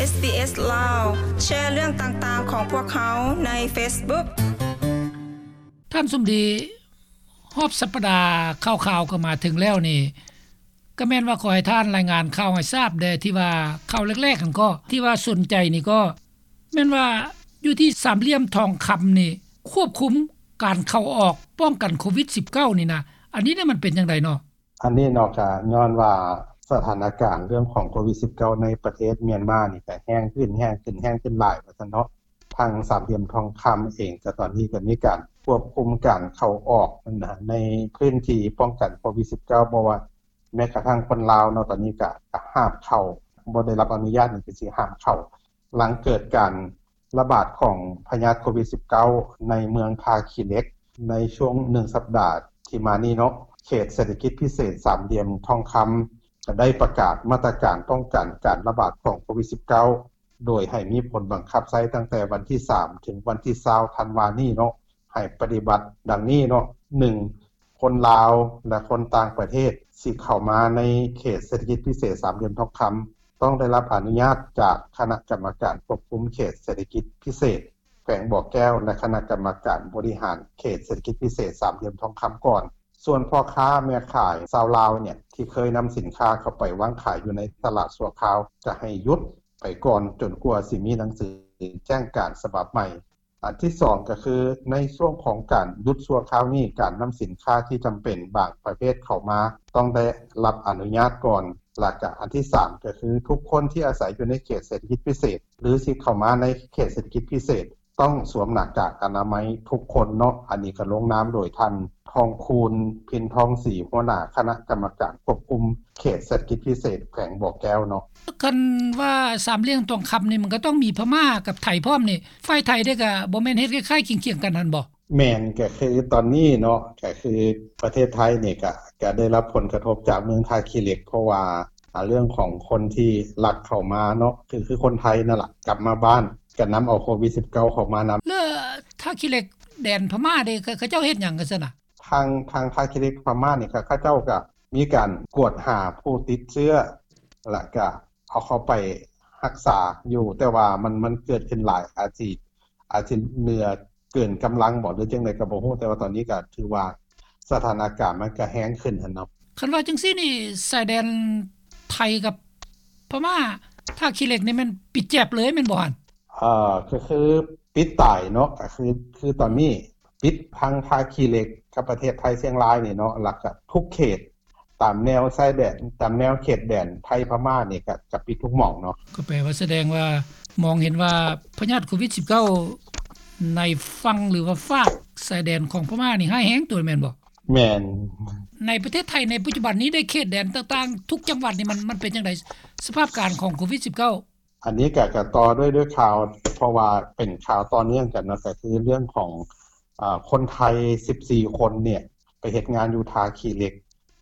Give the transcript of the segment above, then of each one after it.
ເອສບີເອສ ລາວ ແຊເລື່ອງຕ່າງໆຂອງພວກເຮົາໃນເຟສບຸກ. ທ່ານສົມດີ, ຮອບສັບປະດາຂ່າວໆກໍມາເຖິງແລ້ວນີ້ ກໍແມ່ນວ່າຂໍໃຫ້ທ່ານລາຍງານຂ່າວໃຫ້ຊາບແດ່ ທີ່ວ່າຂ່າວແລກໆຫັ້ນກໍ ທີ່ວ່າສົນໃຈນີ້ກໍ ແມ່ນວ່າຢູ່ທີ່ສາມຫຼ່ຽມທອງຄຳນີ້ ຄວບຄຸມການເຂົ້າອອກ ປ້ອງກັນໂຄວິດສິບເກົ້ານີ້ນະ ອັນນີ້ນີ້ມັນເປັນຈັ່ງໃດເນາະ? ອັນນີ້ເນາະ ກະຍ້ອນວ່າສະຖານະການເລື່ອງຂອງໂຄວິດສິບເກົ້າໃນປະເທດມຽນມານີ້ກະແຮງຂຶ້ນ ແຮງຂຶ້ນ ແຮງຂຶ້ນຫຼາຍວ່າຊັ້ນເນາະ. ທາງສາມຫຼ່ຽມທອງຄຳເອງກະຕອນນີ້ກະມີການຄວບຄຸມການເຂົ້າອອກນະ ໃນພື້ນທີ່ປ້ອງກັນໂຄວິດສິບເກົ້າ ບໍ່ວ່າແມ້ກະທັ່ງຄົນລາວເນາະ ຕອນນີ້ກະ ກະຫ້າມເຂົ້າ ບໍ່ໄດ້ຮັບອະນຸຍາດນີ້ກະຊິຫ້າມເຂົ້າ. ຫຼັງເກີດການລະບາດຂອງພະຍາດໂຄວິດສິບເກົ້າໃນເມືອງທ່າຂີ້ເຫຼັກ ໃນຊ່ວງໜຶ່ງສັບດາທີ່ມານີ້ເນາະ ເຂດເສດຖະກິດພິເສດສາມຫຼ່ຽມທອງຄຳ ກໍໄດ້ປະກາດມາດຕະການປ້ອງກັນການລະບາດຂອງໂຄວິດສິບເກົ້າ ໂດຍໃຫ້ມີຜົນບັງຄັບໃຊ້ຕັ້ງແຕ່ວັນທີສາມ ເຖິງວັນທີຊາວ ທັນວານີ້ເນາະ ໃຫ້ປະຕິບັດດັ່ງນີ້ເນາະ. ໜຶ່ງ ຄົນລາວ ແລະ ຄົນຕ່າງປະເທດ ຊິເຂົ້າມາໃນເຂດເສດຖະກິດພິເສດສາມຫຼ່ຽມທອງຄຳ ຕ້ອງໄດ້ຮັບອະນຸຍາດຈາກຄະນະກຳມະການຄວບຄຸມເຂດເສດຖະກິດພິເສດແຂວງບໍ່ແກ້ວ ແລະ ຄະນະກຳມະການບໍລິຫານເຂດເສດຖະກິດພິເສດສາມຫຼ່ຽມທອງຄຳກ່ອນ. ສ່ວນພໍ່ຄ້າແມ່ຂາຍຊາວລາວເນຍ ທີ່ເຄີຍນຳສິນຄ້າເຂົ້າໄປວາງຂາຍຢູ່ໃນຕະຫຼາດຊົ່ວຄາວ ຈະໃຫ້ຢຸດໄປກ່ອນ ຈົນກວ່າຊິມີໜັງສືແຈ້ງການສະບັບໃໝ່. ອັນທີສອງກໍຄື ໃນຊ່ວງຂອງການຢຸດຊົ່ວຄາວນີ້ ການນຳສິນຄ້າທີ່ຈຳເປັນບາງປະເພດເຂົ້າມາ ຕ້ອງໄດ້ຮັບອະນຸຍາດກ່ອນ. ແລ້ວກະອັນທີສາມກໍຄື ທຸກຄົນທີ່ອາໄສຢູ່ໃນເຂດເສດຖະກິດພິເສດ ຫຼື ຊິເຂົ້າມາໃນເຂດເສດຖະກິດພິເສດ ຕ້ອງສວມໜ້າກາກອະນາໄມທຸກຄົນເນາະ. ອັນນີ້ກໍລົງນາມໂດຍທ່ານ ທອງຄູນ ພິນທອງສີ ຫົວໜ້າຄະນະກຳມະການຄວບຄຸມເຂດເສດຖະກິດພິເສດແຂວງບໍ່ແກ້ວເນາະ. ຄັນວ່າສາມຫຼ່ຽມທອງຄຳນີ້ ມັນກໍຕ້ອງມີພະມ້າກັບໄທພ້ອມນີ້ ຝ່າຍໄທເດ້ກໍບໍ່ແມ່ນເຮັດຄ້າຍໆຄຽງໆກັນຫັ້ນບໍ່? ແມ່ນ ກໍຄືຕອນນີ້ເນາະ ກໍຄືປະເທດໄທນີ້ ກໍ ກໍໄດ້ຮັບຜົນກະທົບຈາກເມືອງທ່າຂີ້ເຫຼັກ ເພາະວ່າ ອາ ເລື່ອງຂອງຄົນທີ່ລັກເຂົ້າມາເນາະ ຄື ຄືຄົນໄທນັ້ນລະ ກັບມາບ້ານ ກໍນຳເອົາໂຄວິດສິບເກົ້າເຂົ້າມານຳ. ແລ້ວທ່າຂີ້ເຫຼັກ ແດນພະມ້າເດ້ ເຂົາ ເຂົາເຈົ້າເຮັດຫຍັງກັນຊັ້ນນະ? ທາງ ທາງທ່າຂີ້ເຫຼັກພະມ້ານີ້ ເຂົາ ເຂົາເຈົ້າກໍມີການກວດຫາຜູ້ຕິດເຊື້ອ ແລ້ວກໍເອົາເຂົ້າໄປຮັກສາຢູ່ ແຕ່ວ່າມັນ ມັນເກີດຂຶ້ນຫຼາຍ ອາດຊິ ອາດຊິເຫຼືອເກີນກຳລັງບໍ ຫຼືຈັ່ງໃດກໍບໍ່ຮູ້ ແຕ່ວ່າຕອນນີ້ກໍຖືວ່າສະຖານະການມັນກໍແຮງຂຶ້ນຫັ້ນເນາະ. ຄັນວ່າຈັ່ງຊີ້ນີ້ ຊາຍແດນໄທກັບພະມ້າ ທ່າຂີ້ເຫຼັກນີ້ແມ່ນປິດແຈບເລີຍແມ່ນບໍ່ຫັ້ນ? ເອີ ກໍຄືປິດຕາຍເນາະ ກໍຄື ຄືຕອນນີ້ປິດທັງທ່າຂີ້ເຫຼັກກັບປະເທດໄທຊຽງລາຍນີ້ເນາະ ແລ້ວກໍທຸກເຂດ ຕາມແນວຊາຍແດນ ຕາມແນວເຂດແດນໄທພະມ້ານີ້ ກະ ກະປິດທຸກໝ່ອງເນາະ. ກໍແປວ່າສະແດງວ່າ ມອງເຫັນວ່າພະຍາດໂຄວິດສິບເກົ້າ ໃນຝັ່ງ ຫຼືວ່າຟາກຊາຍແດນຂອງພະມ້ານີ້ຮ້າຍແຮງຕົວະແມ່ນບໍ່? ແມ່ນ. ໃນປະເທດໄທໃນປັດຈຸບັນນີ້ ໃນເຂດແດນຕ່າງໆ ທຸກຈັງຫວັດນີ້ ມັນ ມັນເປັນຈັ່ງໃດ ສະພາບການຂອງໂຄວິດສິບເກົ້າ? ອັນນີ້ກະ ກະຕໍ່ດ້ວຍ ດ້ວຍຂ່າວ ເພາະວ່າເປັນຂ່າວຕໍ່ເນື່ອງກັນເນາະ ກະຄືເລື່ອງຂອງ ອາ ຄົນໄທສິບສີ່ຄົນເນຍ ໄປເຮັດງານຢູ່ທ່າຂີ້ເຫຼັກ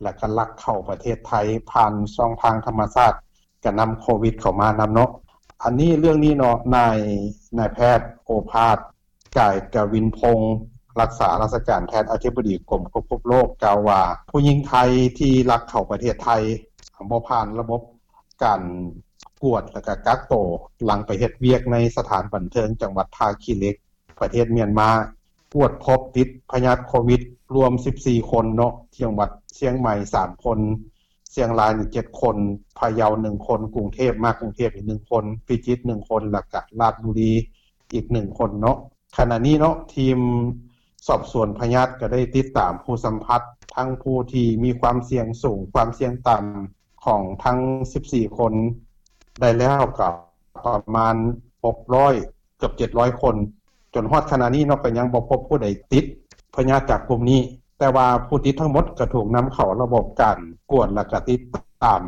ແລ້ວກໍລັກເຂົ້າປະເທດໄທຜ່ານຊ່ອງທາງທຳມະຊາດ ກະນຳໂຄວິດເຂົ້າມານຳເນາະ. ອັນນີ້ ເລື່ອງນີ້ເນາະ ນາຍ ນາຍແພດ ໂອພາດ ກາຍກະວິນພົງ ລັກສາລາຊະການແທນອະທິບໍດີກົມຄວບຄຸມໂລກ ກ່າວວ່າ ຜູ້ຍິງໄທທີ່ລັກເຂົ້າປະເທດໄທ ບໍ່ຜ່ານລະບົບການກວດ ແລ້ວກະກັກໂຕ ຫຼັງໄປເຮັດວຽກໃນສະຖານບັນເທີງຈັງຫວັດທ່າຂີ້ເຫຼັກ ປະເທດມຽນມາ ກວດພົບຕິດພະຍາດໂຄວິດລວມສິບສີ່ຄົນເນາະ, ທີ່ຈັງຫວັດຊຽງໃໝ່ສາມຄົນ, ຊຽງລາຍນີ້ເຈັດຄົນ, ພະເຍົາໜຶ່ງຄົນ, ກຸງເທບ ມາກຸງເທບອີກໜຶ່ງຄົນ, ພິຈິດໜຶ່ງຄົນ ແລ້ວກະລາດບຸລີອີກໜຶ່ງຄົນເນາະ. ຂະນະນີ້ເນາະ ທີມສອບສວນພະຍາດກໍໄດ້ຕິດຕາມຜູ້ສຳຜັດ ທັງຜູ້ທີ່ມີຄວາມສ່ຽງສູງ, ຄວາມສ່ຽງຕ່ຳ ຂອງທັງສິບສີ່ຄົນ ໄດ້ແລ້ວກໍປະມານຫົກຮ້ອຍ ເກືອບເຈັດຮ້ອຍຄົນ, ຈົນຮອດຂະນະນີ້ເນາະ ກໍຍັງບໍ່ພົບຜູ້ໃດຕິດພະຍາດຈາກກຸ່ມນີ້, ແຕ່ວ່າຜູ້ຕິດທັງໝົດກໍຖືກນຳເຂົ້າລະບົບການກວດ ແລ້ວກໍຕິດຕາມ.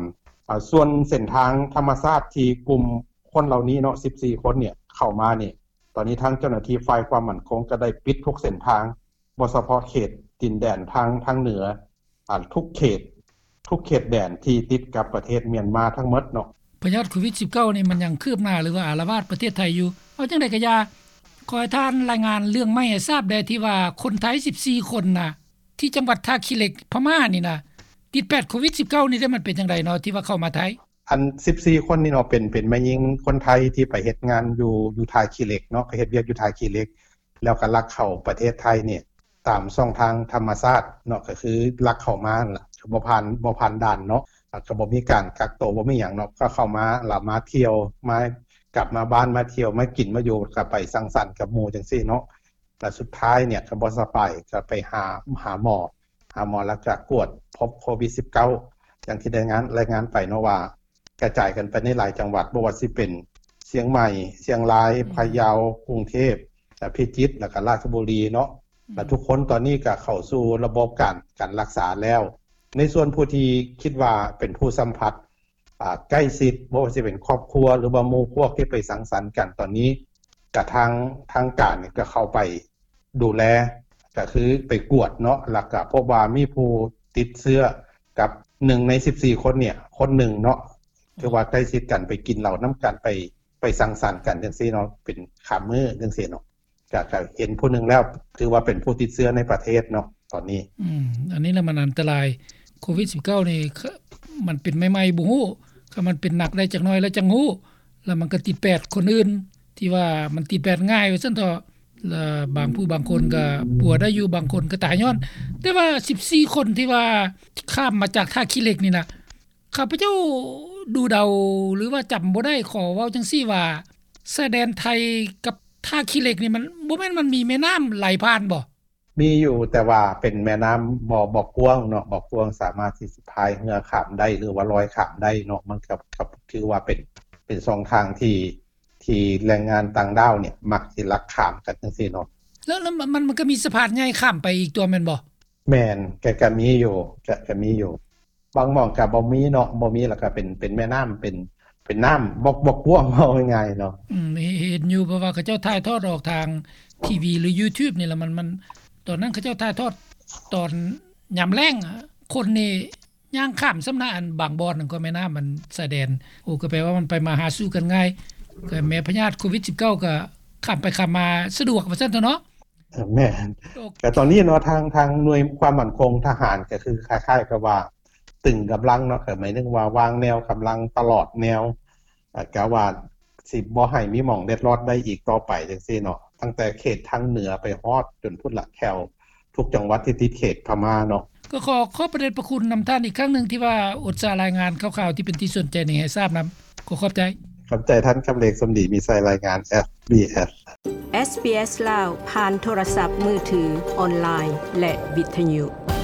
ອາ ສ່ວນເສັ້ນທາງທຳມະຊາດທີ່ກຸ່ມຄົນເຫຼົ່ານີ້ເນາະ ສິບສີ່ຄົນເນຍ ເຂົ້າມານີ້ ຕອນນີ້ທາງເຈົ້າໜ້າທີ່ຝ່າຍຄວາມໝັ້ນຄົງກໍໄດ້ປິດທຸກເສັ້ນທາງ ບໍ່ສະເພາະເຂດດິນແດນທາງ ທາງເໜືອ ອາ ທຸກເຂດ ທຸກເຂດແດນທີ່ຕິດກັບປະເທດມຽນມາທັງໝົດເນາະ. ພະຍາດໂຄວິດສິບເກົ້ານີ້ ມັນຍັງຄືບໜ້າ ຫຼືວ່າອາລະວາດປະເທດໄທຢູ່. ເອົາຈັ່ງໃດກໍຢ່າ, ຂໍໃຫ້ທ່ານລາຍງານເລື່ອງໃໝ່ໃຫ້ຊາບແດ່ ທີ່ວ່າຄົນໄທສິບສີ່ຄົນນະ ທີ່ຈັງຫວັດທ່າຂີ້ເຫຼັກ ພະມ້ານີ້ນະ ຕິດແປດໂຄວິດສິບເກົ້ານີ້ເດ້ ມັນເປັນຈັ່ງໃດເນາະ ທີ່ວ່າເຂົ້າມາໄທ? ອັນສິບສີ່ຄົນນີ້ເນາະ ເປັນ ເປັນແມ່ຍິງຄົນໄທທີ່ໄປເຮັດງານຢູ່ ຢູ່ທ່າຂີ້ເຫຼັກເນາະ ໄປເຮັດວຽກຢູ່ທ່າຂີ້ເຫຼັກ ແລ້ວກໍລັກເຂົ້າປະເທດໄທນີ້ ຕາມຊ່ອງທາງທຳມະຊາດເນາະ ກໍຄືລັກເຂົ້າມານັ້ນລະ ບໍ່ຜ່ານ ບໍ່ຜ່ານດ່ານເນາະ ແລ້ວກໍບໍ່ມີການກັກໂຕ ບໍ່ມີຫຍັງເນາະ ກໍເຂົ້າມາ ແລ້ວມາທ່ຽວ ມາ ກັບມາບ້ານ ມາທ່ຽວ ມາກິນ ມາຢູ່ ກໍໄປສັງສັນກັບໝູ່ຈັ່ງຊີ້ເນາະ ແລ້ວສຸດທ້າຍເນຍກໍບໍ່ສະບາຍ ກໍໄປຫາ ຫາໝໍ ຫາໝໍ ແລ້ວກໍກວດພົບໂຄວິດສິບເກົ້າ ຢ່າງທີ່ໄດ້ງານ ລາຍງານໄປເນາະວ່າ ກະຈາຍກັນໄປໃນຫຼາຍຈັງຫວັດ ບໍ່ວ່າຊິເປັນຊຽງໃໝ່, ຊຽງລາຍ, ອືມ ພະເຍົາ, ກຸງເທບ, ແລະ ພິຈິດ ແລ້ວກໍລາຊະບູລີເນາະ ອືມ ແລະ ທຸກຄົນຕອນນີ້ກໍເຂົ້າສູ່ລະບົບການ ການລັກສາແລ້ວ. ໃນສ່ວນຜູ້ທີ່ຄິດວ່າເປັນຜູ້ສຳຜັດ ອ່າ ໃກ້ຊິດ ບໍ່ວ່າຊິເປັນຄອບຄົວ ຫຼືວ່າໝູ່ພວກທີ່ໄປສັງສັນກັນ ຕອນນີ້ກະທາງ ທາງການນີ້ກໍເຂົ້າໄປ ດູແລ ກໍຄືໄປກວດເນາະ ແລ້ວກໍພົບວ່າມີຜູ້ຕິດເຊື້ອກັບໜຶ່ງໃນສິບສີ່ຄົນເນຍ ຄົນໜຶ່ງເນາະ ຖືວ່າໃກ້ຊິດກັນ ໄປກິນເຫຼົ້ານຳກັນ ໄປ ໄປສັງສັນກັນຈັ່ງຊີ້ເນາະ ເປັນຂ້າມມື້ຈັ່ງຊີ້ເນາະ ກໍ ກໍເຫັນຜູ້ໜຶ່ງແລ້ວ ຖືວ່າເປັນຜູ້ຕິດເຊື້ອໃນປະເທດເນາະ ຕອນນີ້ ອືມ ອັນນີ້ລະມັນອັນຕະລາຍ ໂຄວິດສິບເກົ້ານີ້ ມັນເປັນໃໝ່ໆ ບໍ່ຮູ້ ຄັນມັນເປັນໜັກໄດ້ຈັກໜ້ອຍແລ້ວຈັ່ງຮູ້ ແລ້ວມັນກໍຕິດແປດຄົນອື່ນ ທີ່ວ່າມັນຕິດແປດງ່າຍວ່າຊັ້ນເຖາະ ແລະ ບາງຜູ້ບາງຄົນກໍປົວໄດ້ຢູ່ ບາງຄົນກໍຕາຍຍ້ອນ ແຕ່ວ່າສິບສີ່ຄົນທີ່ວ່າຂ້າມມາຈາກທ່າຂີ້ເຫຼັກນີ້ນະ ຂ້າພະເຈົ້າດູເດົາ ຫຼືວ່າຈຳບໍ່ໄດ້ ຂໍເວົ້າຈັ່ງຊີ້ວ່າ ຊາຍແດນໄທກັບທ່າຂີ້ເຫຼັກນີ້ ມັນ ບໍ່ແມ່ນມັນມີແມ່ນ້ຳໄຫຼຜ່ານບໍ່? ມີຢູ່ ແຕ່ວ່າເປັນແມ່ນ້ຳບໍ່ ບໍ່ກວ້າງເນາະ ບໍ່ກວ້າງ ສາມາດທີ່ຊິພາຍເຮືອຂ້າມໄດ້ ຫຼືວ່າລອຍຂ້າມໄດ້ເນາະ ມັນກໍ ກໍຖືວ່າເປັນ ເປັນຊ່ອງທາງທີ່ ທີ່ແຮງງານຕ່າງດ້າວເນຍມັກຊິລັກຂ້າມກັນຈັ່ງຊີ້ເນາະ ແລ້ວ ແລ້ວມັນ ມັນກໍມີສະພານໃຫຍ່ຂ້າມໄປອີກຕົວະແມ່ນບໍ່? ແມ່ນ ກະ ກະມີຢູ່ ກະ ກະມີຢູ່ ບາງໝ່ອງກະບໍ່ມີເນາະ ບໍ່ມີ ແລ້ວກະເປັນ ເປັນແມ່ນ້ຳ ເປັນ ເປັນນ້ຳບໍ່ ບໍ່ກວ້າງ ເວົ້າງ່າຍໆເນາະ ອືມ ເຫັນຢູ່ ເພາະວ່າເຂົາເຈົ້າຖ່າຍທອດອອກທາງທີວີ ຫຼື ຢູທູບນີ້ລະ ມັນ ມັນ ຕອນນັ້ນເຂົາເຈົ້າຖ່າຍທອດຕອນຍາມແລ້ງ ຄົນນີ້ ຍ່າງຂ້າມຊ້ຳນະ ອັນບາງບ່ອນນັ້ນກໍແມ່ນ້ຳ ອັນຊາຍແດນ ໂອ້ ກໍແປວ່າມັນໄປມາຫາສູ່ກັນງ່າຍ ກໍແມ່ພະຍາດໂຄວິດສິບເກົ້າກໍຂ້າມໄປຂ້າມມາສະດວກວ່າຊັ້ນເຖາະເນາະ ແມ່ນ ແຕ່ຕອນນີ້ເນາະ ທາງ ທາງໜ່ວຍຄວາມໝັ້ນຄົງທະຫານ ກໍຄືຄ້າຍໆກັບວ່າຕຶງກຳລັງເນາະ ກໍໝາຍເຖິງວ່າວາງແນວກຳລັງຕະຫຼອດແນວ ກະວ່າຊິບໍ່ໃຫ້ມີໝ່ອງເລັດລອດໄດ້ອີກຕໍ່ໄປຈັ່ງຊີ້ເນາະ ຕັ້ງແຕ່ເຂດທາງເໜືອໄປຮອດຈົນພຸ້ນລະ ແຖວທຸກຈັງຫວັດທີ່ຕິດເຂດພະມ້າເນາະ ກໍຂໍຂອບພະເດດພະຄຸນນຳທ່ານອີກຄັ້ງໜຶ່ງ ທີ່ວ່າອຸດສາລາຍງານຂ່າວໆທີ່ເປັນທີ່ສົນໃຈນີ້ໃຫ້ຊາບນຳ ຂໍຂອບໃຈ ຂອບໃຈທ່ານ ຄຳເລັກ ສົມດີມີໄຊ ລາຍງານ ເອັສບີເອັສ ເອັສບີເອັສ ລາວ ຜ່ານໂທລະສັບມືຖື, ອອນລາຍ ແລະ ວິທະຍຸ.